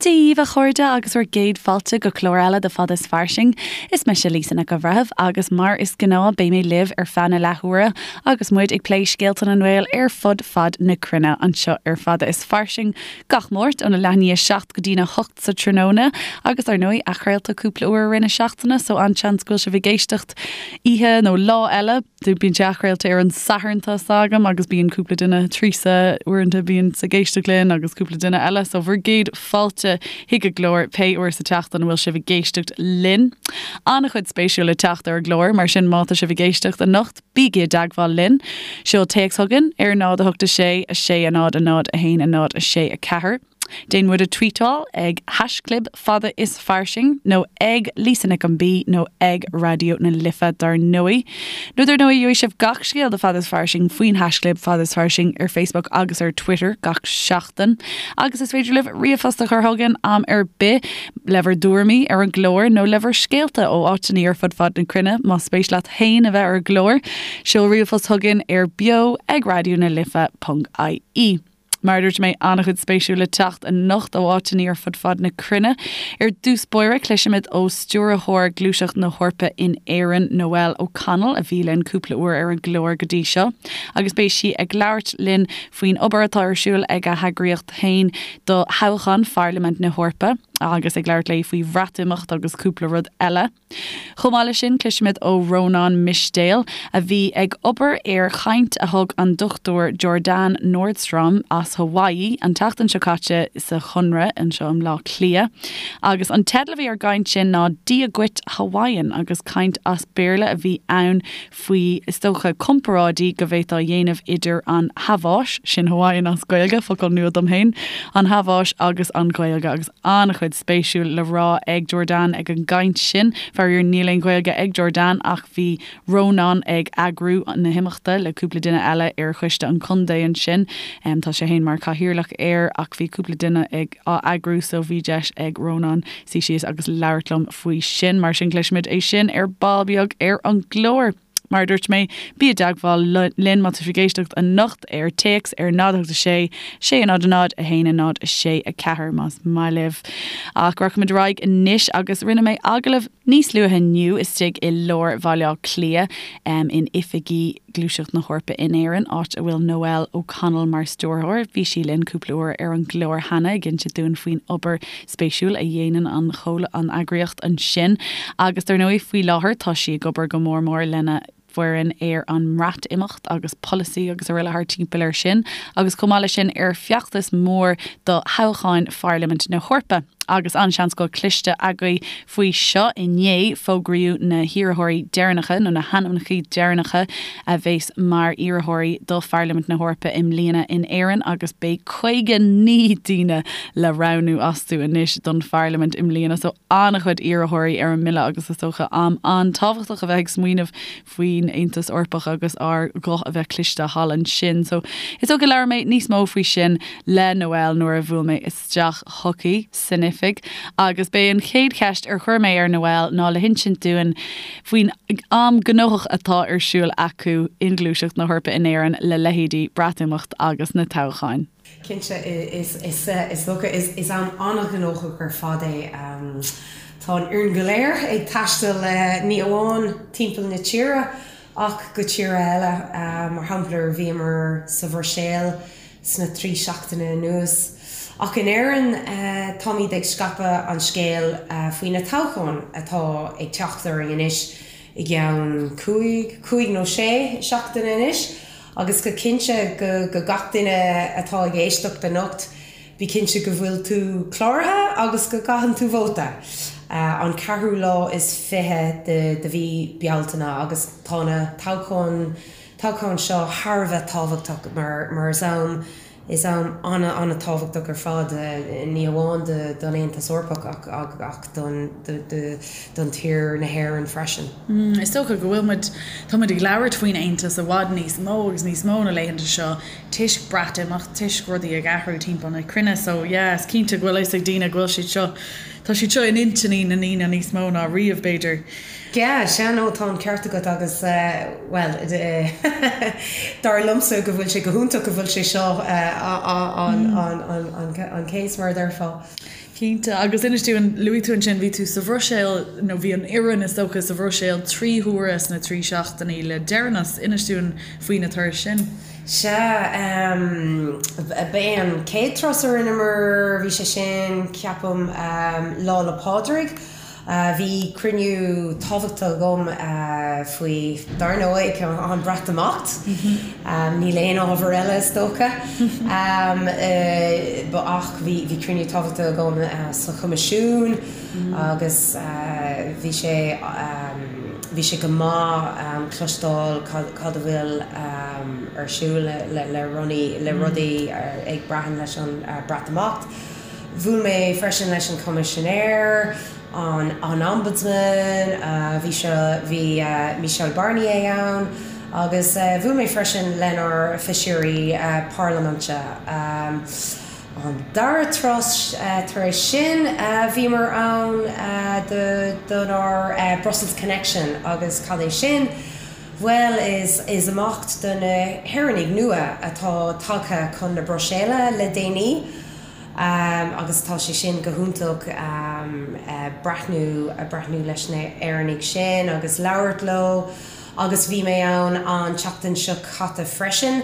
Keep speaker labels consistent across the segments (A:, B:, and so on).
A: Dia dhaoibh, a chairde, agus bhur gcéad fáilte go clár eile de Fada is Fairsing. Is mise Lisa Nic an Bhreithimh agus mar is gnáth beidh mé libh ar feadh na leathuaire agus muid ag plé scéalta na nGael ar fud fad na cruinne anseo ar Fada is Fairsing gach Máirt óna leath i ndiaidh a 7 go dtína 8 sa tráthnóna agus ar ndóigh athchraolta cúpla uair i rith na seachtaine so an-seans go bhfuil sibh ag éisteacht oíche nó lá eile. Bíonn sé athchraolta ar an Satharn tá 's agam agus bíonn cúpla duine, Teresa uaireanta bíonn ag éisteacht linn agus cúpla duine eile so bhur gcéad fáilte chuig an gclár pé uair sa tseachtain a bhfuil sibh ag éisteacht linn. An-chuid spéisiúil le teacht ar an gclár mar sin má tá sibh ag éisteacht anocht bígí i dteagmháil linn. Seol téacs chugainn ar 0 8 6 6 0 0 1 0 6 4. Déan muid a tweetáil ag haischlib fada is fairsing nó ag Lisa Nic an B nó ag Raidió na Life dar ndóigh. Nó dar ndóigh gheobhaidh sibh gach scéal de Fada is Fairsing faoin haischlib fada is fairsing ar Facebook agus ar Twitter gach seachtain. Agus is féidir libh ríomhphost a chur chugainn am ar bith le bhur dtuairimí ar an gclár nó le bhur scéalta ó áiteanna ar fud fad na cruinne más spéis leat féin a bheith ar an gclár. Seol ríomhphost chugainn ar beo ag raidió na life ponc ie. Mar a dúirt mé, an-chuid spéisiúil le teacht anocht ó áiteanna ar fud fad na cruinne. Ar dtús báire, cloisfimid ó Stiúrthóir Gluaiseacht na hEorpa in Éirinn, Noelle O'Connell, a bhí linn cúpla uair ar an gclár go dtí seo, agus beidh sí ag labhairt linn faoin obair atá ar siúl ag a heagraíocht féin do thoghchán Pharlaimint na hEorpa, agus ag labhairt léi faoi Bhreatimeacht agus cúpla rud eile. Chomh maith leis sin, cloisfimid ó Rónán Mistéil, a bhí ag obair ar chaint a thug an Dr Jordane Nordstrom as Hawaii an tseachtain seo caite sa Chonradh anseo i mBleá Cliath. Agus an teideal a bhí ar an gcaint sin ná Dia Dhuit Hawaiian agus caint as Béarla a bhí ann faoi, is dócha, comparáidí go bhféadfá a dhéanamh idir an Haváis, sin Hawaiian as Gaeilge, focal nua dom féin, an Haváis agus an Ghaeilge, agus an-chuid spéisiúil le rá ag Jordane ag an gcaint sin. Faraor, níl aon Ghaeilge ag Jordane ach bhí Rónán ag eagrú na himeachta le cúpla duine eile ar choiste an chontae ansin. Tá sé féin mar chathaoirleach air ach bhí cúpla duine ag á eagrú so bhí deis ag Rónán suí síos agus labhairt liom faoi sin. Mar sin cloisfimid é sin ar ball beag ar an gclár. Mar a dúirt mé, bí i dteagmháil linn má tá sibh ag éisteacht anocht ar téacs ar 0 8 6 6 0 0 1 0 6 4 más maith libh. Ach rachaimid ar aghaidh anois agus rinne mé agallamh níos luaithe inniu istigh i lár Bhaile Átha Cliath in oifigí Gluaiseacht na hEorpa in Éirinn, áit a bhfuil Noelle O'Connell mar stiúrthóir. Bhí sí linn cúpla uair ar an gclár cheana ag inse dúinn faoin obair spéisiúil a dhéanann an an eagraíocht ansin. Agus dar ndóigh, faoi láthair tá sí ag obair go mór mór lena foireann ar an mBreatimeacht agus polasaí agus araile thart timpeall air sin, agus chomh maith leis sin ar feachtas mór do thoghcháin Pharlaimint na hEorpa. Agus an-seans go bhfuil cloiste agaibh faoi seo, inné fógraíodh na hiarrthóirí deireanacha, nó na hainmneacha deireanacha a bheas mar iarrthóirí do Pharlaimint na hEorpa i mbliana in Éirinn agus beidh 59 daoine le roghnú astu anois don Pharlaimint i mbliana. So an-chuid iarrthóirí ar an mbille agus is dócha am an-tábhachtach a bheith ag smaoineamh faoin Aontas Eorpach agus ár ghuth a bheith cloiste thall ansin. So is dócha labhair mé níos mó faoi sin le Noelle nuair a bhuail mé isteach chuici san oifig agus b'é an chéad cheist ar chuir mé ar Noelle ná le hinsint dúinn faoin am gnóthach atá ar siúl acu i nGluaiseacht na hEorpa in Éirinn le leithéidí Breatimeacht agus na toghcháin.
B: Cinnte, is dócha, is am an-ghnóthach ar fad é. Tá an fhoireann go léir ag taisteal ní amháin timpeall na tíre ach go tíortha eile. Mar shampla, bhíomar sa Bhruiséil sna 3 seachtaine anuas. Ach in Éirinn, táimid ag scaipeadh an scéil faoi na toghcháin atá ag teacht orainn anois i gceann cúig, cúig nó sé seachtaine anois. Agus go cinnte go go gach duine atá ag éisteacht anocht, bí cinnte go bhfuil tú cláraithe agus go gcaitheann tú vóta an ceathrú lá is 20 de de mhí Bealtaine agus tá na toghcháin toghcháin seo thar a bheith tábhachtach mar mar is am Is am an-an-tábhachtach ar fad, ní amháin don Aontas Eorpach ach ach don don tír na hÉireann freisin.
C: Is dócha go bhfuil muid, tá muid ag labhairt faoin Aontas i bhfad níos mó agus níos mó na laethanta seo toisc Breatimeacht, toisc rudaí ag athrú timpeall na cruinne so yeah is cinnte go bhfuil a fhios ag daoine go bhfuil siad seo, tá siad seo in intinní na ndaoine níos mó ná riamh b'fhéidir.
B: Yeah, sea, no, tá an ceart agat agus, bhuel, dar liomsa go bhfuil sé go hiontach go bhfuil sé seo an case, mar a déarfá.
C: Cinnte. Agus inis dúinn, luaigh tú ansin, bhí tú sa Bhruiséil, nó bhí an fhoireann is dócha sa Bhruiséil 3 huaire sna 3 seachtainí le deireanas. Inis dúinn faoi na turais sin.
B: Sea, ba é an chéad turas a rinneamar, bhí sé sin, ceapaim, Lá 'le Pádraig. Bhí cruinniú tábhachtach agam faoi, dar ndóigh, an Bhreatimeacht. Níl aon ábhar eile, is dócha. Ach bhí cruinniú tábhachtach agam sa Choimisiún agus bhí sé bhí sé go maith cloisteáil cad a bhfuil ar siúl le rudaí ag braitheann leis an Breatimeacht. Bhuail mé freisin leis an Choimisinéir, an Ombudsman, bhí seo, bhí Michel Barnier ann, agus bhuail mé freisin lenár feisirí parlaiminte. An dara turas tar éis sin, bhíomar ann donár Brussels Connection agus cad é sin? Bhuel, is imeacht do na hÉireannaigh nua atá tagtha chun na Bruiséile le déanaí agus tá sé sin go hiontach breathnú breathnú leis na hÉireannaigh sin agus labhairt leo agus bhí mé ann an tseachtain seo caite freisin.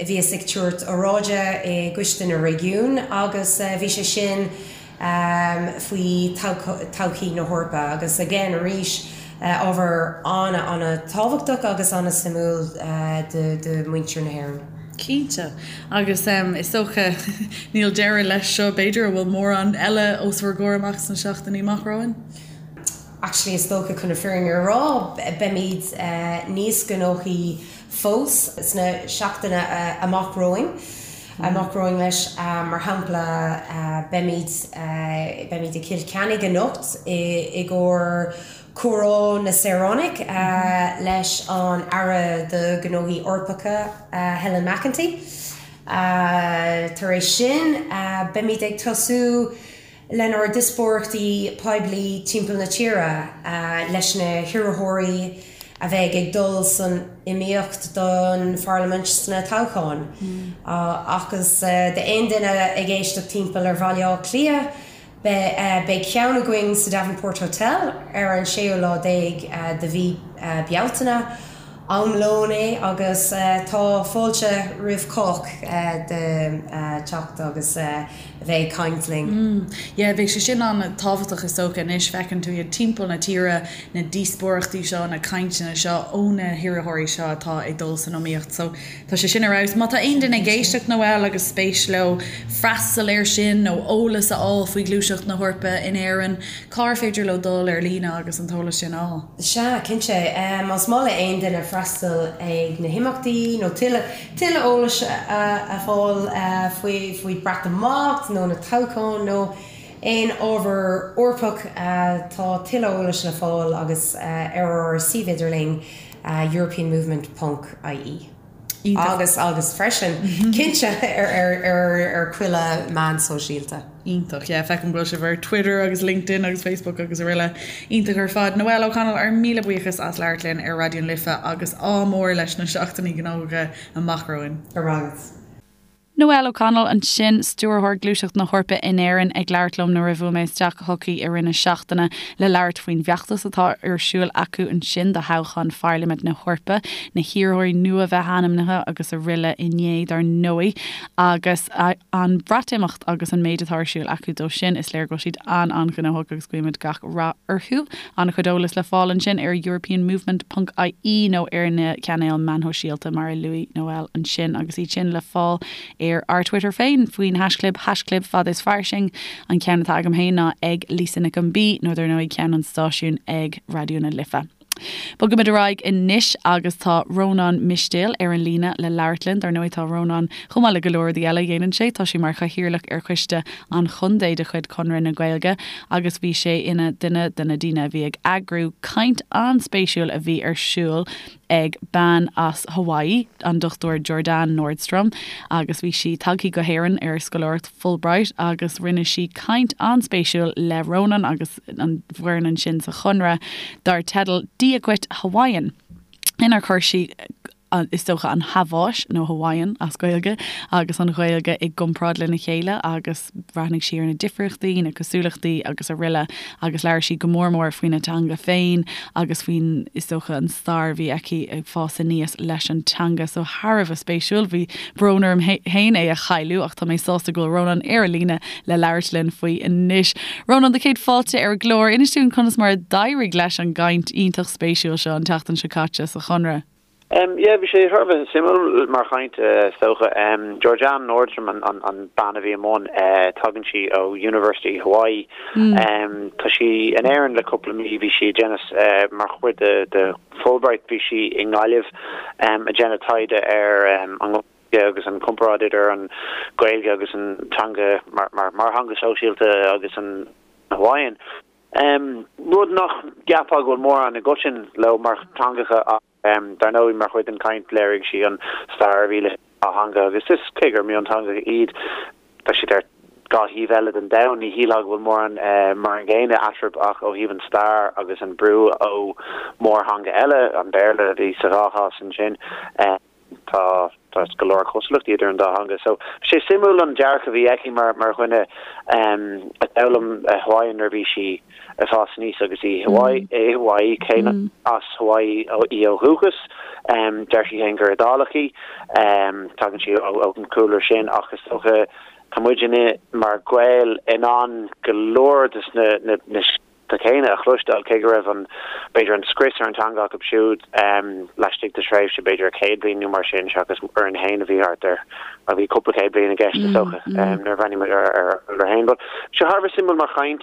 B: Bhíos ag tabhairt óráide i gCoiste na Réigiún agus bhí sé sin faoi todhchaí na hEorpa agus again arís ábhar an-an-tábhachtach agus an-suimiúil do mhuintir na hÉireann.
C: Cinnte. Agus is dócha níl deireadh leis seo b'fhéidir, an bhfuil mórán eile os bhur gcomhair amach sna seachtainí amach romhainn?
B: Actually is dócha chun na fírinne a rá beimid níos gnóthaí fós sna seachtaine amach romhainn. Amach romhainn leis. Mar shampla, beimid beimid i gCill Chainnigh anocht i gcomhair Comhrá na Saoránach leis an Aire do Ghnóthaí Eorpacha, Helen McEntee. Tar éis sin, beimid ag tosú lenár ndíospóireachtaí poiblí timpeall na tíre leis na hiarrthóirí a bheidh ag dul san iomaíocht don Pharlaimint sna toghcháin. Agus d'aon duine ag éisteacht timpeall ar Bhaile Átha Cliath, beidh ceann againn sa Davenport Hotel ar an séú lá déag de mhí Bealtaine. Am lóin é agus tá fáilte roimh chách de teacht agus a bheith ag caint linn.
C: Yeah, beidh sé sin an-tábhachtach is dócha anois, feiceann tú iad timpeall na tíre, na díospóireachtaí seo, na cainteanna seo ó na hiarrthóirí seo atá ag dul san iomaíocht. So tá sé sin ar fheabhas. Má tá aon duine ag éisteacht Noelle agus spéis leo freastal air sin nó eolas a fháil faoi Ghluaiseacht na hEorpa in Éirinn, Cár féidir leo dul ar líne agus an t-eolas sin a fháil?
B: Sea, cinnte. Más maith le aon duine freastal ag na himeachtaí nó tuilleadh tuilleadh eolais a fháil faoi faoi Breatimeacht nó na toghcháin nó aon ábhar Eorpach, tá tuilleadh eolais le fáil agus ar ár suíomh idirlín europeanmovement ponc ie. Agus agus freisin, cinnte, ar ar chuile meán sóisialta.
C: Iontach, yeah, feicim go bhfuil sibh ar Twitter agus LinkedIn agus Facebook agus araile. Iontach ar fad. Noelle O'Connell, ár míle buíochas as labhairt linn ar Raidió na Life agus ádh mór leis na seachtainí gnóthacha amach romhainn.
B: Go raibh maith agat.
A: Noelle O'Connell ansin, Stiúrthóir Gluaiseacht na hEorpa in Éirinn, ag labhairt liom nuair a bhuail mé isteach chuici i rith na seachtaine le labhairt faoin bhfeachtas atá ar siúl acu ansin do thoghchán Pharlaimint na hEorpa, na hiarrthóirí nua bheith ainmnithe agus araile inné dar ndóigh, agus an Bhreatimeacht agus an méid atá ar siúl acu dó sin. Is léir go bhfuil siad an-an-ghnóthach agus guímid gach rath orthu. An-chuid eolais le fáil ansin ar europeanmovement ponc ie nó ar na cainéil meán shóisialta mar a luaigh Noelle ansin agus iad sin le fáil ar ár Twitter féin faoin haischlib haischlib fad is fairsing. An ceann atá agam féin ná ag Lisa Nic an B nó dar ndóigh ceann an stáisiúin ag Raidió na Life. Bogaimid ar aghaidh anois agus tá Rónán Mistéil ar an líne le labhairt linn. Dar ndóigh tá Rónán, chomh maith le go leor rudaí eile a dhéanann sé, tá sé mar chathaoirleach ar choiste an chontae de chuid Chonradh na Gaeilge agus bhí sé ina dhuine de na daoine a bhí ag eagrú caint an-spéisiúil a bhí ar siúl ag bean as Hawaii, an Dr Jordane Nordstrom, agus bhí sí tagtha go hÉirinn ar scoláireacht Fulbright agus rinne sí caint an-spéisiúil le Rónán agus an bhfoireann ansin sa Chonradh dar teideal Dia Dhuit Hawaiian inar chuir sí. Is dócha an Haváis, nó Hawaiian as Gaeilge, agus an Ghaeilge i gcomparáid lena chéile agus bhreathnaigh sí ar na difríochtaí, na cosúlachtaí agus araile agus labhair sí go mór mór faoina teanga féin agus faoin, is dócha, an stair a bhí aici ag fás aníos leis an teanga. So thar a bheith spéisiúil. Bhí brón orm féin é a chailleadh ach tá mé sásta go bhfuil Rónán ar an líne le labhairt linn faoi anois. Rónán, do chéad fáilte ar an gclár. Inis dúinn conas mar a d'éirigh leis an gcaint iontach spéisiúil seo an tseachtain seo caite sa Chonradh.
D: Yeah, bhí sé thar a bheith suimiúil mar chaint, is dócha. Georgianne Nordstrom an bean a bhí i mbun, tagann sí ó University Hawaii. Tá sí in Éirinn le cúpla mí, bhí sí ag déanamh mar chuid de Fulbright, bhí sí i nGaillimh ag déanamh taighde ar an Ghaeilge agus an comparáid idir an Ghaeilge agus an teanga mar theanga sóisialta agus an Hawaiian. Rud nach gceapfá go bhfuil mórán i gcoiteann leo mar theangacha ach dar ndóigh mar chuid den chaint léirigh sí an stair a bhí leis an dá theanga agus is cé gur mionteangacha iad tá siad ar dhá thaobh eile den domhan ní shílfeá go bhfuil mórán mar an gcéanna eatarthu ach ó thaobh an stair agus an brú ó mhórtheanga eile, an Béarla a bhí sa dhá chás ansin. Tá tá go leor cosúlachtaí idir an dá theanga. So bhí sé suimiúil an dearcadh a bhí aici mar mar dhuine a d'fhoghlaim Hawaiian nuair a bhí sí ag fás aníos agus í Hawaii i Hawaii cé nach as Hawaii í ó dhúchas. Deir sí féin gur Iodálach í. Tagann sí ón chúlra sin ach is dócha tá muidinne mar Ghaeil in ann go leor de na na na céanna a chloisteáil, cé go raibh an, b'fhéidir, an scrios ar an teanga acu siúd laistigh de thréimhse b'fhéidir 100 bliain nó mar sin, seachas orainn féin a bhí thart ar, bhuel, bhí cúpla céad bliain i gceist is dócha, nuair a bhreathnaíonn muid ar ár gcúlra féin. But bhí sé thar a bheith suimiúil mar chaint.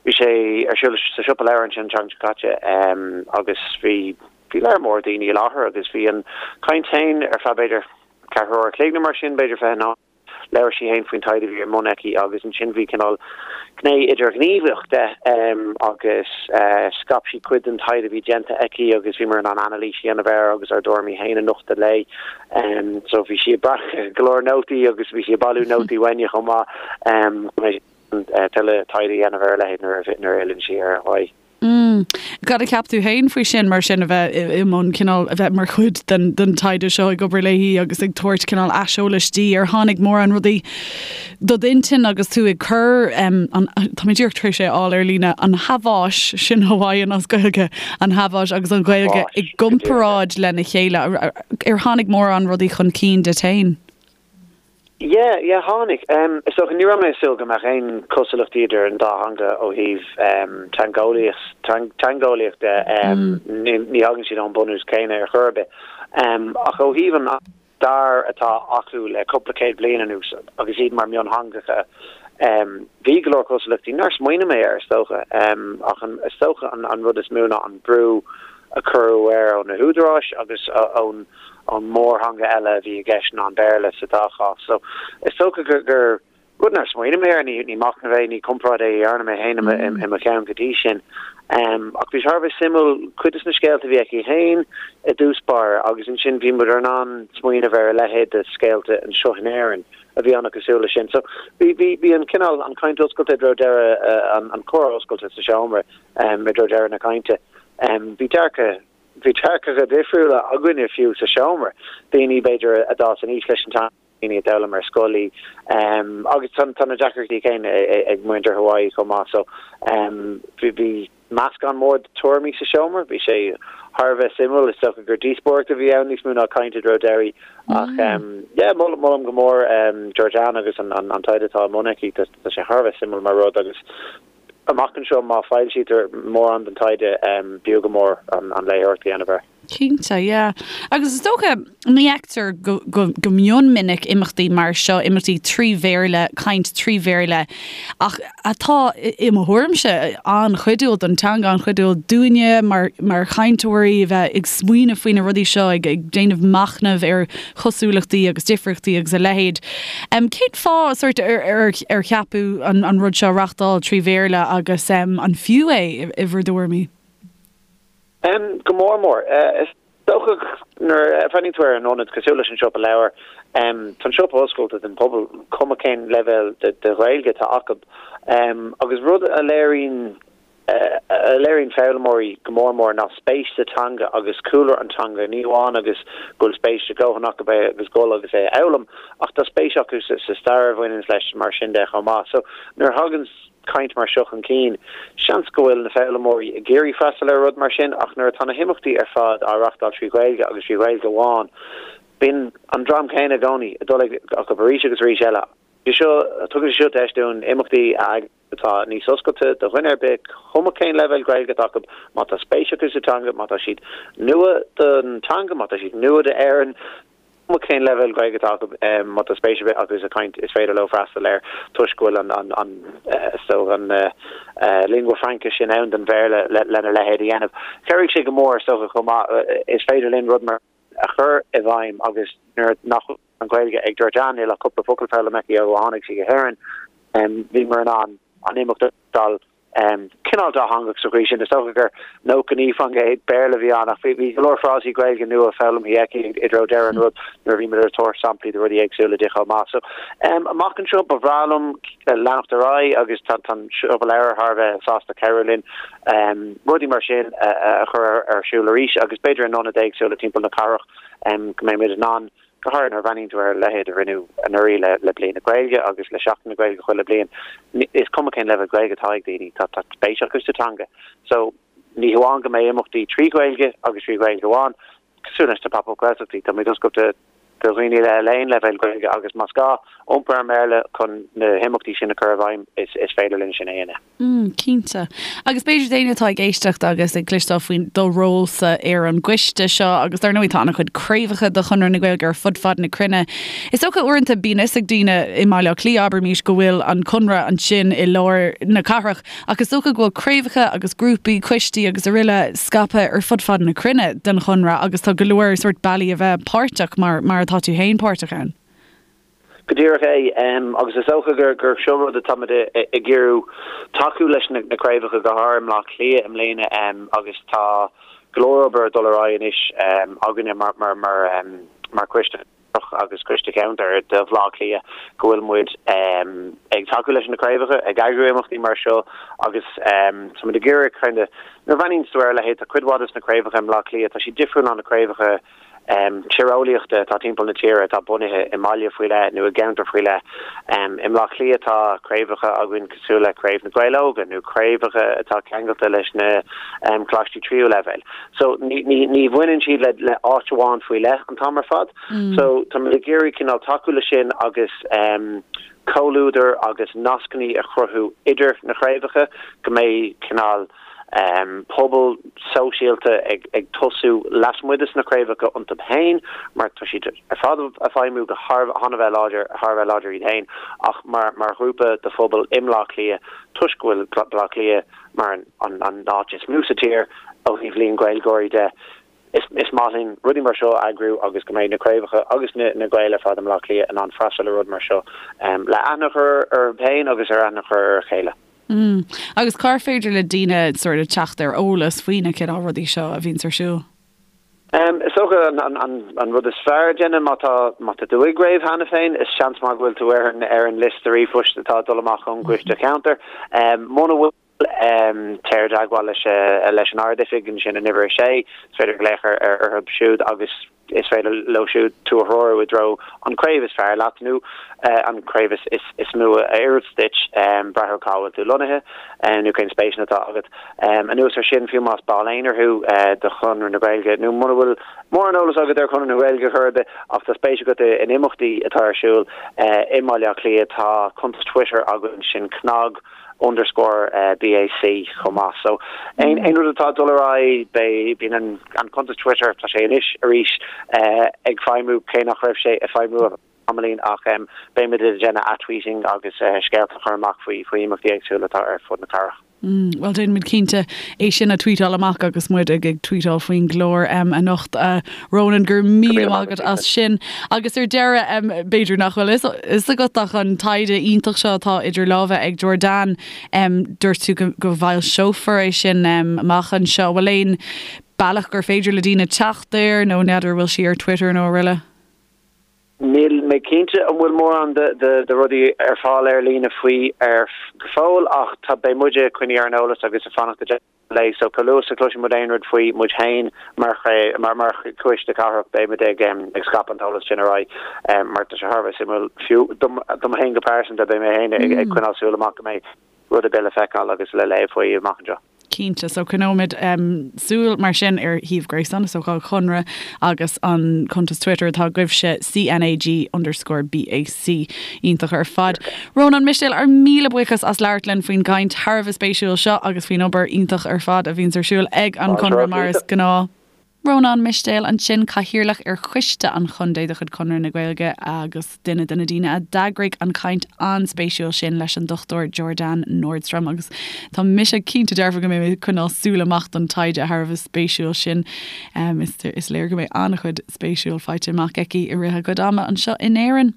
D: Bhí sé ar siúl sa Siopa Leabhar ansin an tseachtain seo caite agus bhí, bhí lear mór daoine i láthair agus bhí an chaint féin ar feadh b'fhéidir ceathrú uair a chloig nó mar sin, b'fhéidir 20 nóiméad. Labhair sí féin faoin taighde a bhí ar mbun aici agus ansin bhí cineál gné idirghníomhach de agus scaip sí cuid den taighde a bhí déanta aici agus bhíomar in ann anailís a dhéanamh air agus ár dtuairimí féin a nochtadh léi. So bhí sí ag breacadh go leor nótaí agus bhí sí ag bailiú nótaí uainne chomh maith chun tuilleadh taighde a dhéanamh ar a leithéid nuair a fhilleann sí ar Hawaii.
A: Mm. Cad a cheap tú féin faoi sin, mar sin, a bheith i mbun cineál, a bheith mar chuid den, den taighde seo, ag obair léi agus ag tabhairt cineál aiseolais di? Ar tháinig mórán rudaí do d'intinn agus tú ag cur, an, tá mé díreach tar éis é a fháil ar líne, an Haváis, sin Hawaiian as Gaeilge, an Haváis agus an Ghaeilge i gcomparáid lena chéile. Ar tháinig mórán rudaí chun cinn duit féin?
D: Yeah, yeah, tháinig. Is dócha, ní raibh mé ag súil go mbeadh aon chosúlachtaí idir an dá theanga ó thaobh teangeolaíocht de. Ní thagann siad ón bunús céanna ar chor ar bith. Ach ó thaobh an stair atá acu le cúpla céad bliain anuas agus iad mar mhiontheangacha, bhí go leor cosúlachtaí nár smaoinigh mé air, is dócha. Ach is dócha an rud is mó ná an brú a cuireadh air ó na húdaráis agus ón ón mórtheanga eile a bhí i gceist ná an Béarla sa dá chás. So, is dócha gur gur rud nár smaoinigh mé air, ní ní machnamh é, ní comparáid é a dhearna mé féin i mo cheann go dtí sin. Ach bhí sé thar a bheith suimiúil cuid de na scéalta a bhí aici féin i dtús báire agus ansin bhí muid in ann smaoineamh ar a leithéid de scéalta anseo in Éirinn a bhí an-chosúil leis sin. So, bhí bhí bhí an cineál an chaint oscailte i dtreo deireadh an an comhrá oscailte sa seomra i dtreo deireadh na cainte. Bhí dearcadh Bhí dearcadh difriúla againne fiú sa seomra, daoine b'fhéidir a d'fhás aníos leis an teanga, daoine a d'fhoghlaim ar scoil í, agus tá na deacrachtaí céanna ag muintir Hawaii chomh maith. So bhí meascán mór de tuairimí sa seomra, bhí sé thar a bheith suimiúil, is dócha gur díospóireacht a bhí ann níos mó ná caint i dtreo deiridh ach yeah, molaim go mór Georgianne agus an taighde atá i mbun aici, tá sé thar a bheith suimiúil mar rud agus Amach anseo, má foilsítear mórán den taighde, b'fhiú go mór an léitheoireacht a dhéanamh air.
A: Cinnte, yeah. Agus is dócha, ní fheictear go, go, go mion minic imeachtaí mar seo, imeachtaí trí Bhéarla, caint trí Bhéarla, ach atá, i mo thuairimse, an-chuidiúil don teanga, an-chuidiúil dúinne mar, mar chainteoirí a bheith ag smaoineamh faoi na rudaí seo, ag, ag déanamh machnaimh ar chosúlachtaí agus difríochtaí agus a leithéid. Cén fáth sórt ar ar ceapadh an rud seo a reachtáil trí Bhéarla agus an fiú é i bhur dtuairimí?
D: Go mór mór. Is dócha nuair a bhreathnaíonn tú ar an ionad cosúil leis an Siopa Leabhar, tá an siopa oscailte don phobal, cuma cén leibhéal de Ghaeilge atá acu. Agus rud a léiríonn. A léiríonn foghlaimeoirí go mór mór ná spéis sa teanga agus cúlra an teanga, ní amháin agus go bhfuil spéis leordhóthanach acu é agus dul agus é a fhoghlaim, ach tá spéis acu sa stair a bhaineanns leis mar sin de chomh maith. So nuair a thagann caint mar seo chun cinn, seans go bhfuil na foghlaimeoirí ag iarraidh freastal ar rud mar sin ach nuair atá na himeachtaí ar fad á reachtáil trí Ghaeilge agus trí Ghaeilge amháin, bíonn an dream céanna i gcónaí ag dul acu arís agus arís eile. Seo, tugann sé seo deis dúinn imeachtaí a eagrú atá níos oscailte do dhuine ar bith, cuma cén leibhéal Gaeilge atá acu, má tá spéis acu sa teanga, má tá siad nua don teanga, má tá siad nua d'Éirinn, cuma cén leibhéal Gaeilge atá acu, má tá spéis ar bith acu sa chaint, is féidir leo freastal air toisc go bhfuil an, an, an, is dócha an lingua franca sin ann don Bhéarla lena leithéid a dhéanamh. Chabhraigh sé go mór, is dócha, chomh maith, is féidir linn rud mar a chur i bhfeidhm agus nuair nach bhfuil an Ghaeilge ag Georgianne, níl ach cúpla focal foghlamtha aici ó tháinig sí go hÉirinn, bhíomar in ann an imeacht a reáchtáil cineál dátheangach sa chaoi sin. Is dócha gur 99% Béarla a bhí ann ach bhí go leor frásaí Gaeilge nua foghlamtha aici i dtreo deireadh an rud nuair a bhí muid ag tabhairt samplaí de rudaí éagsúla di chomh maith. So amach anseo ba bhreá liom leanacht ar aghaidh agus tá an Siopa Leabhar thar a bheith sásta cabhrú linn rudaí mar sin a chur ar siúl arís agus b'fhéidir in ionaid éagsúla timpeall na cathrach go mbeidh muid in ann Go háirithe nuair a bhreathnaíonn tú ar a leithéid a rinneadh anuraidh le Bliain na Gaeilge agus le Seachtain na Gaeilge chuile bliain, is cuma cén leibhéal Gaeilge atá ag daoine, tá spéis acu sa teanga. So, ní hamháin go mbeidh imeachtaí trí Ghaeilge agus trí Ghaeilge amháin, cosúil leis na Pop-Up Gaeltachtaí, tá muid oscailte do dhaoine le haon leibhéal Gaeilge agus más gá iompar ar an mBéarla chun na himeachtaí sin a chur i bhfeidhm, is féidir linn sin a dhéanamh.
A: Mm, cinnte. Agus b'fhéidir d'éinne atá ag éisteacht agus ag cloisteáil faoi do rólsa ar an gcoiste seo, agus dar ndóigh tá an-chuid craobhacha de Chonradh na Gaeilge ar fud fad na cruinne. Is dócha uaireanta bíonn fhios ag daoine i mBaile Átha Cliath, abraimis, go bhfuil an Conradh ansin i lár na cathrach, ach is dócha go bhfuil craobhacha agus grúpaí, coistí agus araile scaipthe ar fud fad na cruinne den Chonradh agus tá go leor sórt bealaí a bheith páirteach mar mar atá tú féin páirteach ann.
D: Go díreach é, agus is dócha gur seo rud atáimid ag iarraidh tacú leis na craobhacha, go háirithe i mBleá Cliath i mbliana, agus tá go leor obair ag dul ar aghaidh anois againne mar choiste agus coiste ceantair do Bhleá Cliath go bhfuil muid ag tacú leis na craobhacha, ag eagrú imeachtaí mar seo agus tá muid ag iarraidh kind of nuair a bhreathnaíonn tú ar a leithéid, tá cuid mhaith de na craobhacha i mBleá Cliath, tá siad difriúil ná na craobhacha tíreolaíochta atá timpeall na tíre atá bunaithe i mbaile faoi leith nó i gceantar faoi leith. I mBleá Cliath tá craobhacha againn cosúil le Craobh na Gaeil Óga nó craobhacha atá ceangailte leis na coláistí tríú leibhéal. So ní bhaineann siad le áit amháin faoi leith an t-am ar fad. So tá muid ag iarraidh cineál tacú le sin agus comhluadar agus nascanna a chruthú idir na craobhacha go mbeidh cineál pobal sóisialta ag tosú lasmuigh de na craobhacha iontu féin, mar tá siad ar fad ag feidhmiú go thar a bheith láidir, thar a bheith láidir iad féin, ach mar mar ghrúpa de phobal i mBleá Cliath, toisc go bhfuil Bleá Cliath mar an an áit is mó sa tír ó thaobh líon Gaeilgeoirí de. Is is maith linn rudaí mar seo a eagrú agus go mbeidh na craobhacha agus na na Gaeil ar fad i mBleá Cliath in ann freastal ar rud mar seo le aithne a chur orthu féin agus ar aithne a chur ar a chéile.
A: Mm. Agus cár féidir le daoine sort of teacht ar eolas faoi na cineál rudaí seo a bhíonns ar siúl?
D: Is dócha an rud is fearr a dhéanamh má tá má tá tú i gcraobh cheana féin, is seans maith go bhfuil tú ar an ar an liosta ríomhphoist atá ag dul amach ón gcoiste ceantair. Muna bhfuil, téir i dteagmháil leis leis an Ard-Oifig ansin in uimhir 6, is féidir glaoch ar orthu siúd agus Is féidir leo siúd tú a threorú i dtreo an craobh is fearr leat nó an craobh is mó a oireanns duit, brath ar cá bhfuil tú lonnaithe nó cén spéiseanna atá agat. Anuas ar sin, fiú más ball aonair thú de Chonradh na Gaeilge nó muna bhfuil mórán eolas agat ar Chonradh na Gaeilge chor ar bith ach tá spéis agat in imeachtaí atá ar siúl i mBaile Átha Cliath, tá cuntas Twitter againn, sin CnaG. underscore BAC chomh maith. So aon rud atá ag dul ar aghaidh, beidh, bíonn an an cuntas Twitter, tá sé anois arís ag feidhmiú cé nach raibh sé ag feidhmiú ar feadh tamaillín ach beimid ag déanamh ath-tweeting agus scéalta a chur amach faoi faoi imeachtaí éagsúla atá ar fud na cathrach.
A: Mm, bhuel déanfaimid cinnte é sin a tweetáil amach agus muid ag ag tweetáil faoin gclár anocht. Ronan, go raibh míle maith agat as sin. Agus ar deireadh, b'fhéidir nach bhfuil fhios agat ach an taighde iontach seo atá idir lámha ag Georgianne, dúirt tú go bhfoilseofar é sin amach anseo. Bhfuil aon bealach gur féidir le daoine teacht air nó n'fheadar bhfuil sí ar Twitter nó araile?
D: Níl mé cinnte an bhfuil mórán de rudaí ar fáil ar líne faoi ar go fóill ach tá beidh muide ag coinneáil ar an eolas agus ag fanacht i dteagmháil léi so chomh luath is a chloiseann muid aon rud faoi muid féin mar mar mar choiste cathrach beidh muid ag ag scaipeadh an t-eolas sin ar aghaidh mar tá sé thar a bheith suimiúil fiú dom dom féin go pearsanta beidh mé féin ag ag coinneáil súil amach go mbeidh rud ar bith le feiceáil agus le léamh faoi amach anseo.
C: Cinnte. So coinneoimid súil mar sin ar shuíomh gréasáin is dócha an Chonradh agus an cuntas Twitter atá agaibhse, CNAG underscore BAC. Iontach ar fad. Rónán Mistéil, ár míle buíochas as labhairt linn faoin gcaint thar a bheith spéisiúil seo agus faoin obair iontach ar fad a bhíonns ar siúl ag an Chonradh mar is gnáth. Rónán Mistéil ansin, Cathaoirleach ar Choiste an Chontae de chuid Chonradh na Gaeilge agus duine de na daoine a d'eagraigh an chaint an-spéisiúil sin leis an Dr Georganne Nordstrom agus tá mise cinnte dearfa go mbeidh mé ag coinneáil súil amach don taighde thar a bheith spéisiúil sin. Is léir go mbeidh an-chuid spéisiúil faighte amach aici i rith a cuid ama anseo in Éirinn.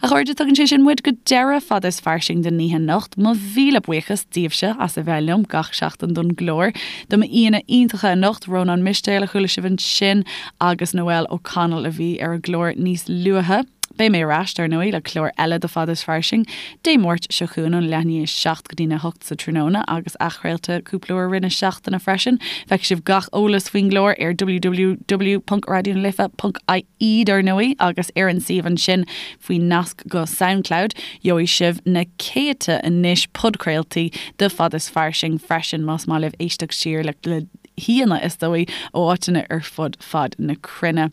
C: A chairde, tugann sé sin muid go deireadh Fada is Fairsing don oíche anocht. Mo mhíle buíochas daoibhse as a bheith liom gach seachtain don gclár. Do m'aíonna iontacha anocht, Rónán Mistéil a chuala sibh ansin agus Noelle O'Connell a bhí ar an gclár níos luaithe. Beidh mé ar ais, dar ndóigh, le clár eile de Fada is Fairsing Dé Máirt seo chugainn ón leath i ndiaidh a 7 go dtína 8 sa tráthnóna agus athchraolta cúpla uair i rith na seachtaine freisin. Feicfidh sibh gach eolas faoin gclár ar www.raidionalife.ie. dar ndóigh, agus ar an suíomh ansin faoin nasc go Soundcloud, gheobhaidh sibh na céadta anois podchraoltaí de Fada is Fairsing freisin, más maith libh éisteacht siar le haíonna, is dóigh, ó áiteanna ar fud fad na cruinne.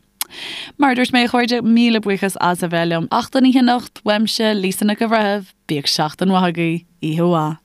C: Mar a dúirt mé, a chairde, míle buíochas as a bheith liom. Ach don oíche anocht, uaimse, Lisa Nic an Bhreithimh, bíodh seachtain mhaith agaibh, oíche mhaith.